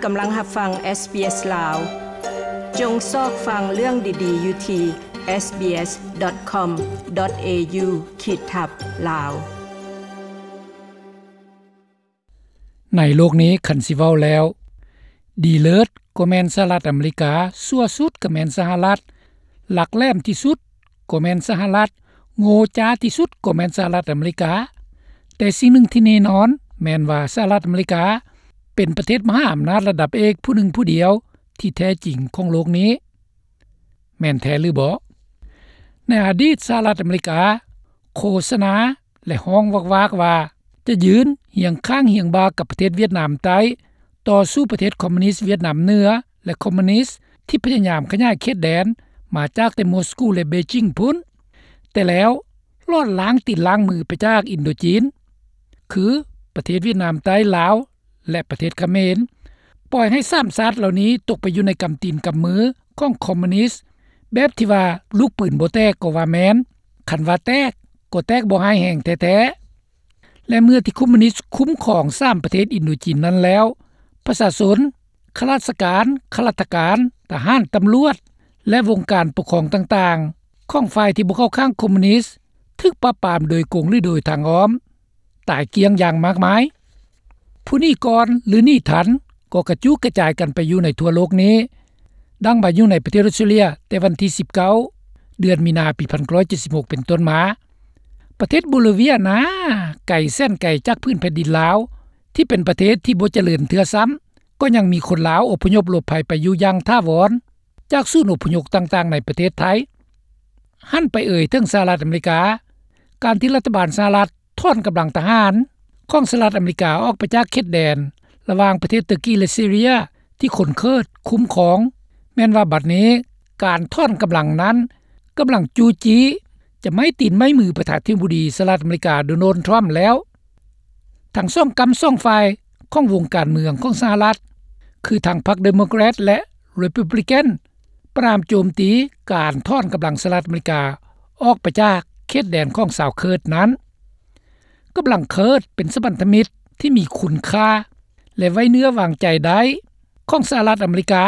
ກຳລັງຮັບຟັງ SBS ລາວ. ຈົ່ງຊອກຟັງເລື່ອງດີໆຢູ່ທີ່ SBS.com.au ຂີດທັບ ລາວ. ໃນໂລກນີ້ ຄັນຊິເວົ້າແລ້ວ ດີເລີດກໍແມ່ນສະຫະລັດອາເມລິກາ, ຊົ່ວສຸດກໍແມ່ນສະຫະລັດ, ຫຼັກແຫຼມທີ່ສຸດກໍແມ່ນສະຫະລັດ, ໂງ່ຈ້າທີ່ສຸດກໍແມ່ນສະຫະລັດອາເມລິກາ. ແຕ່ສິ່ງໜຶ່ງທີ່ແນ່ນອນແມ່ນວ່າ ສະຫະລັດອາເມລິກາເປັນປະເທດມະຫາອຳນາດລະດັບເອກຜູ້ໜຶ່ງຜູ້ດຽວທີ່ແທ້ຈິງຂອງໂລກນີ້. ແມ່ນແທ້ຫຼືບໍ່? ໃນອະດີດ ສະຫະລັດອາເມລິກາໂຄສະນາ ແລະ ຮ້ອງວາກໆວ່າຈະຢືນຮຽງຂ້າງຮຽງບ່າກັບປະເທດຫວຽດນາມໃຕ້, ຕໍ່ສູ້ປະເທດຄອມມູນິດຫວຽດນາມເໜືອ ແລະ ຄອມມູນິດທີ່ພະຍາຍາມຂະຫຍາຍເຂດແດນມາຈາກແຕ່ມົສກູ ແລະ ເບຈິງພຸ້ນ. ແຕ່ແລ້ວລອດລ້າງຕີນລ້າງມືໄປຈາກອິນໂດຈີນ ຄືປະເທດຫວຽດນາມໃຕ້, ລາວ ແລະ ປະເທດຂະເໝນ, ປ່ອຍໃຫ້ສາມຊາດເຫຼົ່ານີ້ຕົກໄປຢູ່ໃນກຳຕີນກຳມືຂອງຄອມມູນິດ ແບບທີ່ວ່າລູກປືນບໍ່ແຕກກໍວ່າແມ່ນ, ຄັນວ່າແຕກກໍແຕກບໍ່ຮ້າຍແຮງແທ້ໆ. ແລະ ເມື່ອທີ່ຄອມມູນິດຄຸ້ມຄອງສາມປະເທດອິນໂດຈີນນັ້ນແລ້ວ, ປະຊາຊົນ, ຂ້າລາຊະການ, ຂ້າລາຊະການ, ທະຫານ, ຕຳຫຼວດ ແລະ ວົງການປົກຄອງຕ່າງໆຂອງຝ່າຍທີ່ບໍ່ເຂົ້າຂ້າງຄອມມູນິດ ຖືກປາບປາມໂດຍກົງ ຫຼື ໂດຍທາງອ້ອມ ຕາຍກ້ຽງຢ່າງມາກມາຍ. ຜູ້ໜີກ່ອນ ຫຼື ໜີທັນ ກໍກະຈຸກະຈາຍກັນໄປຢູ່ໃນທົ່ວໂລກນີ້, ດັ່ງວ່າຢູ່ໃນປະເທດອົດສະຕຣາເລຍ ແຕ່ວັນທີສິບເກົ້າ ເດືອນມີນາ ປີພັນເກົ້າຮ້ອຍເຈັດສິບຫົກ ເປັນຕົ້ນມາ. ປະເທດໂບລີເວຍນາ ໄກແສນໄກຈາກພື້ນແຜ່ນດິນລາວ ທີ່ເປັນປະເທດທີ່ບໍ່ຈະເລີນເທື່ອຊ້ຳ, ກໍຍັງມີຄົນລາວອົບພະຍົບຫຼົບໄພໄປຢູ່ຢ່າງຖາວອນ ຈາກສູນອົບພະຍົບຕ່າງໆໃນປະເທດໄທ. ຫັນໄປເອີຍເຖິງສະຫະລັດອາເມລິກາ, ການທີ່ລັດຖະບານສະຫະລັດຖອນກຳລັງທະຫານຂອງສະຫະລັດອາເມລິກາອອກໄປຈາກເຂດແດນລະຫວ່າງປະເທດເຕີກີ ແລະ ຊີເຣຍ ທີ່ຄົນເຄີດຄຸ້ມຄອງ, ແມ່ນວ່າບັດນີ້ການຖອນກຳລັງນັ້ນກຳລັງຈູ້ຈີ້ຈະໄມ້ຕີນໄມ້ມືປະທານາທິບໍດີສະຫະລັດອາເມລິກາ ໂດນັລ ທຣຳ ແລ້ວ. ທັງສອງກ້ຳສອງຝ່າຍຂອງວົງການເມືອງຂອງສະຫະລັດ ຄືທັງພັກເດໂມແຄຣດ ແລະ ຣີພັບລິກັນ ປະນາມໂຈມຕີການຖອນກຳລັງສະຫະລັດອາເມລິກາອອກໄປຈາກເຂດແດນຂອງຊາວເຄີດນັ້ນ. ກຳລັງເຄີດເປັນສະພັນທະມິດທີ່ມີຄຸນຄ່າ ແລະ ໄວ້ເນື້ອວາງໃຈໄດ້ຂອງສະຫະລັດອາເມລິກາ,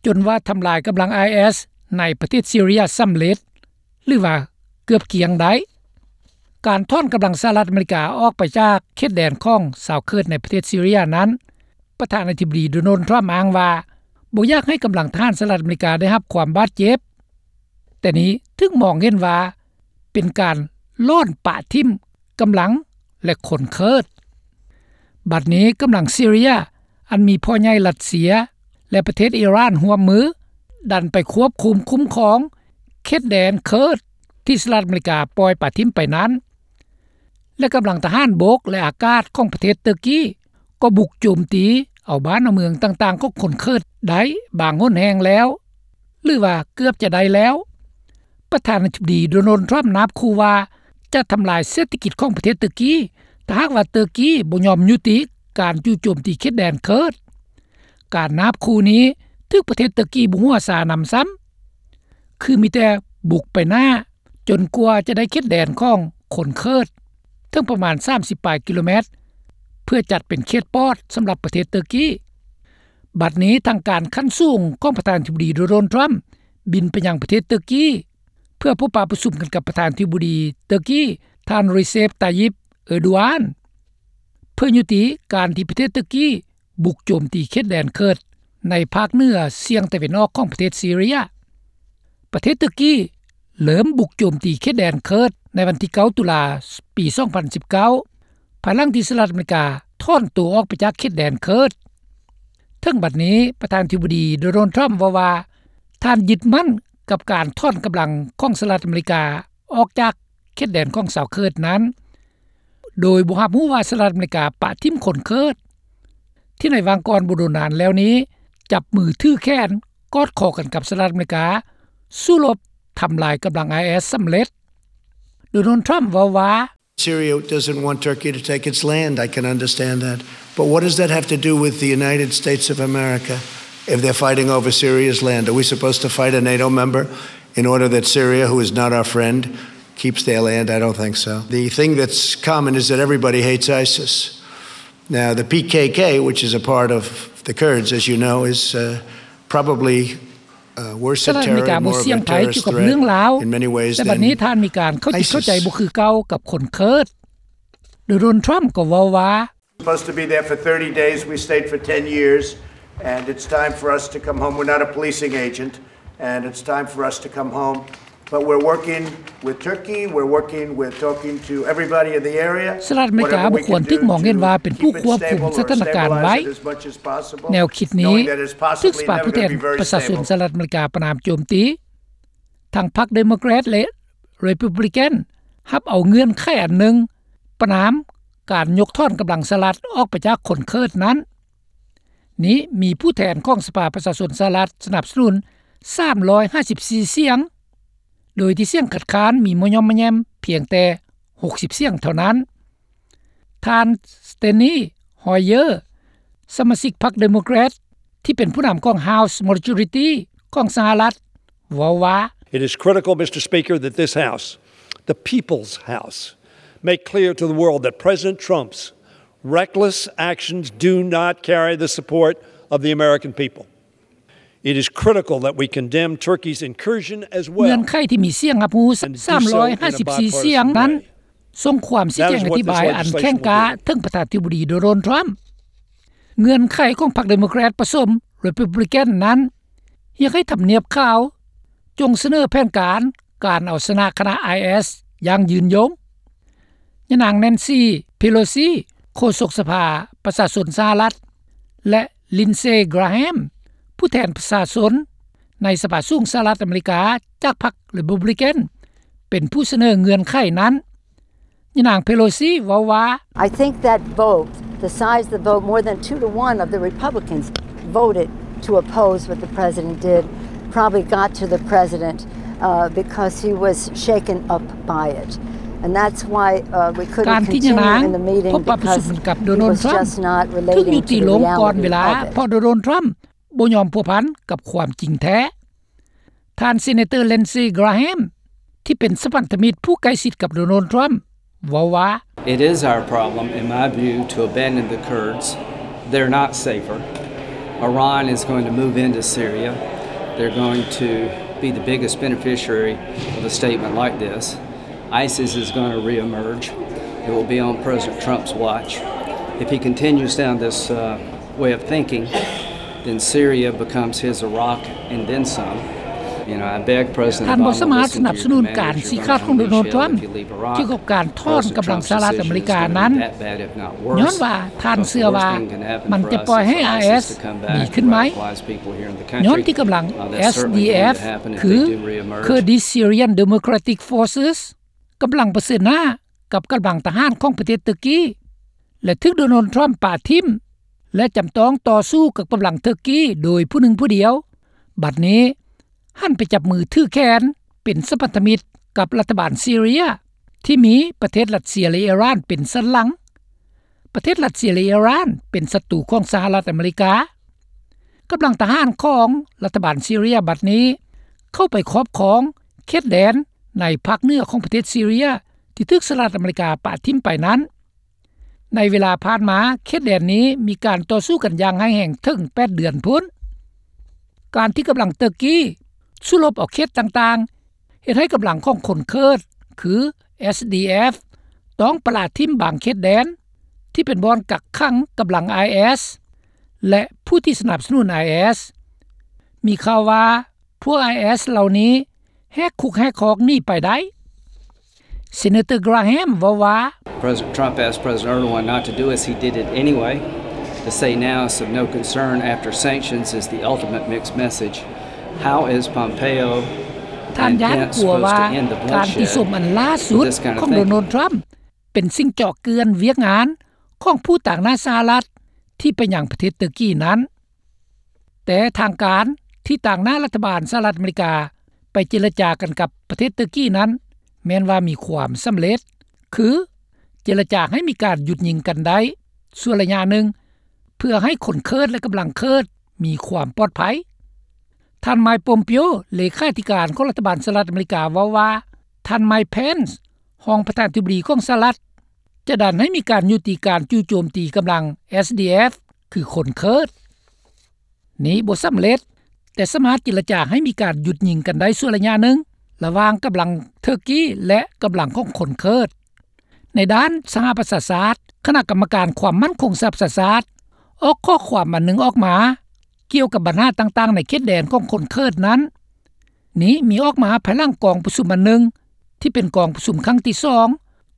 ຈົນວ່າທຳລາຍກຳລັງໄອເອສໃນປະເທດຊີເຣຍສຳເລັດ ຫຼືວ່າເກືອບກ້ຽງໄດ້. ການຖອນກຳລັງສະຫະລັດອາເມລິກາອອກໄປຈາກເຂດແດນຂອງຊາວເຄີດໃນປະເທດຊີເຣຍນັ້ນ, ປະທານາທິບໍດີ ໂດນັລ ທຣຳ ອ້າງວ່າບໍ່ຢາກໃຫ້ກຳລັງທະຫານສະຫະລັດອາເມລິກາໄດ້ຮັບຄວາມບາດເຈັບ, ແຕ່ນີ້ຖືກມອງເຫັນວ່າເປັນການຫຼອນປະຖິ້ມກຳລັງ ແລະ ຄົນເຄີດ. ບັດນີ້ກຳລັງຊີເຣຍ ອັນມີພໍ່ໃຫຍ່ຣັດເຊຍ ແລະ ປະເທດອີຣານຮ່ວມມື ດັນໄປຄວບຄຸມຄຸ້ມຄອງເຂດແດນເຄີດທີ່ສະຫະລັດອາເມລິກາປ່ອຍປະຖິ້ມໄປນັ້ນ ແລະ ກຳລັງທະຫານບົກ ແລະ ອາກາດຂອງປະເທດເຕີກີ ກໍບຸກໂຈມຕີເອົາບ້ານເອົາເມືອງຕ່າງໆຂອງຄົນເຄີດໄດ້ບາງຫົນແຫ່ງແລ້ວ ຫຼືວ່າເກືອບຈະໄດ້ແລ້ວ. ປະທານາທິບໍດີ ໂດນັລ ທຣຳ ນາບຂູ່ວ່າຈະທຳລາຍເສດຖະກິດຂອງປະເທດເຕີກີ ຖ້າຫາກວ່າເຕີກີບໍ່ຍອມຍຸຕິການຈູ່ໂຈມຕີເຂດແດນເຄີດ. ການນາບຂູ່ນີ້ຖືກປະເທດເຕີກີບໍ່ຫົວຊານຳຊ້ຳ, ຄືມີແຕ່ບຸກໄປໜ້າ ຈົນກວ່າຈະໄດ້ເຂດແດນຂອງຄົນເຄີດເຖິງປະມານສາມສິບປາຍກິໂລແມັດ ເພື່ອຈັດເປັນເຂດປອດສຳລັບປະເທດເຕີກີ. ບັດນີ້ທາງການຂັ້ນສູງຂອງປະທານາທິບໍດີ ໂດນັລ ທຣຳ ບິນໄປຍັງປະເທດເຕີກີ ເພື່ອພົບປະປະຊຸມກັນກັບປະທານາທິບໍດີເຕີກີ ທ່ານ ເຣເຊັບ ຕາຢິບ ເອີດູອານ ເພື່ອຍຸຕິການທີ່ປະເທດເຕີກີບຸກໂຈມຕີເຂດແດນເຄີດໃນພາກເໜືອສ່ຽງຕາເວັນອອກຂອງປະເທດຊີເຣຍ. ປະເທດເຕີກີເລີ່ມບຸກໂຈມຕີເຂດແດນເຄີດໃນວັນທີເກົ້າ ຕຸລາ ປີສອງພັນສິບເກົ້າ ພາຍຫຼັງທີ່ສະຫະລັດອາເມລິກາຖອນຕົວອອກໄປຈາກເຂດແດນເຄີດ. ເຖິງບັດນີ້ປະທານາທິບໍດີ ໂດນັລ ທຣຳ ເວົ້າວ່າ ທ່ານຍຶດໝັ້ນກັບການຖອນກຳລັງຂອງສະຫະລັດອາເມລິກາອອກຈາກເຂດແດນຂອງຊາວເຄີດນັ້ນ ໂດຍບໍ່ຮັບຮູ້ວ່າສະຫະລັດອາເມລິກາປະຖິ້ມຄົນເຄີດ ທີ່ໃນຫວ່າງກ່ອນບໍ່ດົນນານແລ້ວນີ້ ຈັບມືຖືແຂນກອດຄໍກັນກັບສະຫະລັດອາເມລິກາ ສູ້ລົບທຳລາຍກຳລັງໄອເອສສຳເລັດ. ໂດນັລ ທຣຳ ເວົ້າວ່າ Syria doesn't want Turkey to take its land. I can understand that. But what does that have to do with the United States of America? If they're fighting over Syria's land, are we supposed to fight a NATO member in order that Syria, who is not our friend, keeps their land? I don't think so. The thing that's common is that everybody hates ISIS. Now, the PKK, which is a part of The Kurds, as you know, is uh, probably uh, worse ສະຫະລັດອາເມລິກາບໍ່ສ່ຽງໃຜກ່ຽວກັບເລື່ອງລາວ ແຕ່ບັດນີ້ທ່ານມີການເຂົ້າຈິດເຂົ້າໃຈບໍ່ຄືເກົ່າກັບຄົນເຄີດ. ໂດນັລ ທຣຳກໍເວົ້າວ່າ Supposed to be there for thirty days. We stayed for ten years, and it's time for us to come home. We're not a policing agent, and it's time for us to come home. But we're working with Turkey. We're working with talking to everybody in the area. ສະຫະລັດອາເມລິກາບໍ່ຄວນຖືກມອງເຫັນວ່າເປັນຜູ້ຄວບຄຸມສະຖານະການໄວ້. ແນວຄິດນີ້ຖືກສະພາຜູ້ແທນປະຊາຊົນສະຫະລັດອາເມລິກາປະນາມໂຈມຕີ. ທັງພັກເດໂມແຄຣດ ແລະ ເຣປູບລິກັນ ຮັບເອົາເງື່ອນໄຂອັນໜຶ່ງ ປະນາມການຍົກຖອນກຳລັງສະຫະລັດອອກໄປຈາກຄົນເຄີດນັ້ນ. ນີ້ມີຜູ້ແທນຂອງສະພາປະຊາຊົນສະຫະລັດສະໜັບສະໜູນສາມຮ້ອຍຫ້າສິບສີ່ສຽງ, ໂດຍທີ່ສຽງຄັດຄ້ານມີມາຍ່ອມມາແຍ່ມພຽງແຕ່ຫົກສິບສຽງເທົ່ານັ້ນ. ທ່ານ Steny Hoyer ສະມາຊິກພັກເດໂມແຄຣດ ທີ່ເປັນຜູ້ນຳຂອງ House Majority ຂອງສະຫະລັດ ເວົ້າວ່າ It is critical, Mister Speaker, that this House, the People's House, make clear to the world that President Trump's reckless actions do not carry the support of the American people. It is critical that we condemn Turkey's incursion as well. ເງື່ອນໄຂທີ່ມີສຽງຮັບຮູ້ສາມຮ້ອຍຫ້າສິບສີ່ສຽງນັ້ນ ສົ່ງຄວາມຊີ້ແຈງອະທິບາຍອັນແຂງກ້າເຖິງປະທານາທິບໍດີ ໂດນັລ ທຣຳ. ເງື່ອນໄຂຂອງພັກເດໂມແຄຣດປະສົມ ເຣປູບລິກັນ ນັ້ນ ຮຽກໃຫ້ທຳນຽບຂາວຈົ່ງສະເໜີແຜນການການເອົາຊະນະຄະນະ ໄອເອສ ຢ່າງຍືນຍົງ. ຍານາງ Nancy Pelosi ໂຄສົກສະພາປະຊາຊົນສະຫະລັດ ແລະ Lindsey Graham ຜູ້ແທນປະຊາຊົນໃນສະພາສູງສະຫະລັດອາເມລິກາ ຈາກພັກເຣປູບລິກັນ ເປັນຜູ້ສະເໜີເງື່ອນໄຂນັ້ນ. ຍານາງ Pelosi ເວົ້າວ່າ I think that vote, the size of the vote, more than two to one of the Republicans voted to oppose what the president did, probably got to the president uh, because he was shaken up by it. And that's why uh, we couldn't continue in the meeting because he was just not relating to the reality of it. ການທີ່ຍານາງພົບປະຊຸມກັບໂດນັລ ທຣຳ ຖືກຍຸຕິລົງກ່ອນເວລາ ເພາະໂດນັລ ທຣຳບໍ່ຍອມພົວພັນກັບຄວາມຈິງແທ້. ທ່ານ Senator Lindsey Graham ທີ່ເປັນສະພັນທະມິດຜູ້ໃກ້ຊິດກັບໂດນັລ ທຣຳ ເວົ້າວ່າ It is our problem, in my view, to abandon the Kurds. They're not safer. Iran is going to move into Syria. They're going to be the biggest beneficiary of a statement like this. ISIS is going to reemerge. It will be on President Trump's watch. If he continues down this uh, way of thinking, then Syria becomes his Iraq and then some. You know, I beg President Obama to listen to your command as your vice presidential chief. If you leave Iraq, President Trump's situation is going to be that bad, if not worse. The worst thing can happen for us is ISIS to come back and radicalize people here in the country. Uh, that's certainly going to happen if they do reemerge. ຍ້ອນວ່າທ່ານເຊື່ອວ່າມັນຈະປ່ອຍໃຫ້ ISIS ດີຂຶ້ນໄໝ? ຍ້ອນທີ່ກຳລັງ SDF ຄື Kurdish Syrian Democratic Forces ກຳລັງປະເຊີນໜ້າກັບກຳລັງທະຫານຂອງປະເທດເຕີກີ ແລະ ຖືກໂດນັລ ທຣຳປະຖິ້ມ ແລະ ຈຳຕ້ອງຕໍ່ສູ້ກັບກຳລັງເຕີກີໂດຍຜູ້ໜຶ່ງຜູ້ດຽວ, ບັດນີ້ຫັນໄປຈັບມືຖືແຂນເປັນສະພັນທະມິດກັບລັດຖະບານຊີເຣຍ ທີ່ມີປະເທດຣັດເຊຍ ແລະ ອີຣານເປັນສັນຫຼັງ. ປະເທດຣັດເຊຍ ແລະ ອີຣານເປັນສັດຕູຂອງສະຫະລັດອາເມລິກາ. ກຳລັງທະຫານຂອງລັດຖະບານຊີເຣຍບັດນີ້ເຂົ້າໄປຄອບຄອງເຂດແດນໃນພາກເໜືອຂອງປະເທດຊີເຣຍ ທີ່ຖືກສະຫະລັດອາເມລິກາປະຖິ້ມໄປນັ້ນ. ໃນເວລາຜ່ານມາ ເຂດແດນນີ້ມີການຕໍ່ສູ້ກັນຢ່າງຮ້າຍແຮງເຖິງແປດເດືອນພຸ້ນ. ການທີ່ກຳລັງເຕີກີສູ້ລົບເອົາເຂດຕ່າງໆ ເຮັດໃຫ້ກຳລັງຂອງຄົນເຄີດ ຄື SDF ຕ້ອງປະລະຖິ້ມບາງເຂດແດນ ທີ່ເປັນບ່ອນກັກຂັງກຳລັງ IS ແລະ ຜູ້ທີ່ສະໜັບສະໜູນ IS. ມີຂ່າວວ່າ ພວກ IS ເຫຼົ່ານີ້ແຫກຄຸກແຫກຄອກໜີໄປໄດ້. Senator Graham ເວົ້າວ່າ President Trump asked President Erdogan not to do this. He did it anyway. To say now it's of no concern after sanctions is the ultimate mixed message. How is Pompeo ທ່ານຢ້ານກົວວ່າ ການຕິຊົມອັນລ່າສຸດຂອງໂດນັລ ທຣຳ ເປັນສິ່ງເຈາະເຈື່ອນວຽກງານຂອງຜູ້ຕາງໜ້າສະຫະລັດທີ່ໄປຍັງປະເທດເຕີກີນັ້ນ. ແຕ່ທາງການທີ່ຕາງໜ້າລັດຖະບານສະຫະລັດອາເມລິກາໄປເຈລະຈາກັນກັບປະເທດເຕີກີນັ້ນ ແມ່ນວ່າມີຄວາມສຳເລັດ ຄືເຈລະຈາໃຫ້ມີການຢຸດຍິງກັນໄດ້ຊົ່ວໄລຍະໜຶ່ງ ເພື່ອໃຫ້ຄົນເຄີດ ແລະ ກຳລັງເຄີດມີຄວາມປອດໄພ. ທ່ານ Mike Pompeo ເລຂາທິການຂອງລັດຖະບານສະຫະລັດອາເມລິກາເວົ້າວ່າ ທ່ານ Mike Pence ຮອງປະທານາທິບໍດີຂອງສະຫະລັດ ຈະດັນໃຫ້ມີການຍຸຕິການຈູ່ໂຈມຕີກຳລັງ SDF ຄືຄົນເຄີດ. ນີ້ບໍ່ສຳເລັດ, ແຕ່ສາມາດເຈລະຈາໃຫ້ມີການຢຸດຍິງກັນໄດ້ຊົ່ວໄລຍະໜຶ່ງ ລະຫວ່າງກຳລັງເທີກີ ແລະ ກຳລັງຂອງຄົນເຄີດ. ໃນດ້ານສະຫະປະຊາຊາດ, ຄະນະກຳມະການຄວາມໝັ້ນຄົງສະຫະປະຊາຊາດ ອອກຂໍ້ຄວາມອັນໜຶ່ງອອກມາ ກ່ຽວກັບບັນຫາຕ່າງໆໃນເຂດແດນຂອງຄົນເຄີດນັ້ນ. ນີ້ມີອອກມາພາຍຫຼັງກອງປະຊຸມອັນໜຶ່ງ ທີ່ເປັນກອງປະຊຸມຄັ້ງທີສອງ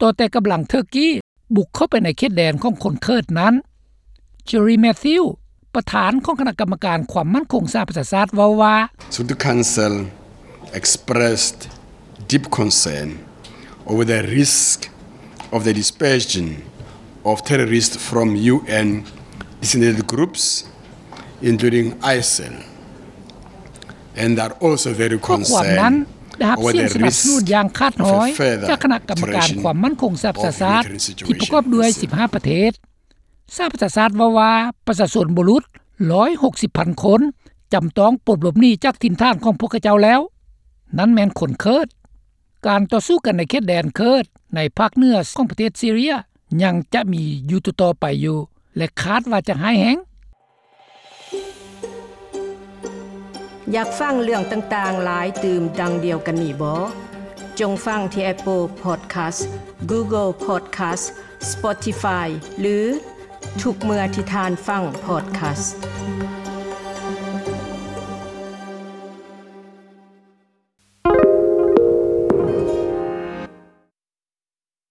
ຕໍ່ແຕ່ກຳລັງເທີກີບຸກເຂົ້າໄປໃນເຂດແດນຂອງຄົນເຄີດນັ້ນ. ເຈຣີ ແມທິວ ປະທານຂອງຄະນະກຳມະການຄວາມໝັ້ນຄົງສະຫະປະຊາຊາດເວົ້າວ່າ Security Council expressed deep concern over the risk of the dispersion of terrorists from U N designated groups, including ISIL, and are also very concerned over the risk of a further spread of ຂໍ້ຄວາມນັ້ນໄດ້ຮັບສຽງສະໜັບສະໜູນຢ່າງຂາດຫອຍຈາກຄະນະກຳມະການຄວາມໝັ້ນຄົງສະຫະປະຊາຊາດ ທີ່ປະກອບດ້ວຍສິບຫ້າປະເທດ. ສະຫະປະຊາຊາດເວົ້າວ່າ ປະຊາຊົນບໍ່ຫຼຸດ ໜຶ່ງຮ້ອຍຫົກສິບພັນຄົນ ຈຳຕ້ອງປົດຫຼົບໜີຈາກຖິ່ນຖານຂອງພວກເຂົາເຈົ້າແລ້ວ, ນັ້ນແມ່ນຄົນເຄີດ. ການຕໍ່ສູ້ກັນໃນເຂດແດນເຄີດໃນພາກເໜືອຂອງປະເທດຊີເຣຍ ຍັງຈະມີຢູ່ຕໍ່ໆໄປຢູ່ ແລະ ຄາດວ່າຈະຮ້າຍແຮງ. ຢາກຟັງເລື່ອງຕ່າງໆຫຼາຍຕື່ມດັ່ງດຽວກັນນີ້ບໍ? ຈົ່ງຟັງທີ່ Apple Podcast, Google Podcast, Spotify ຫຼື ທຸກເມື່ອທີ່ທ່ານຟັງ podcast.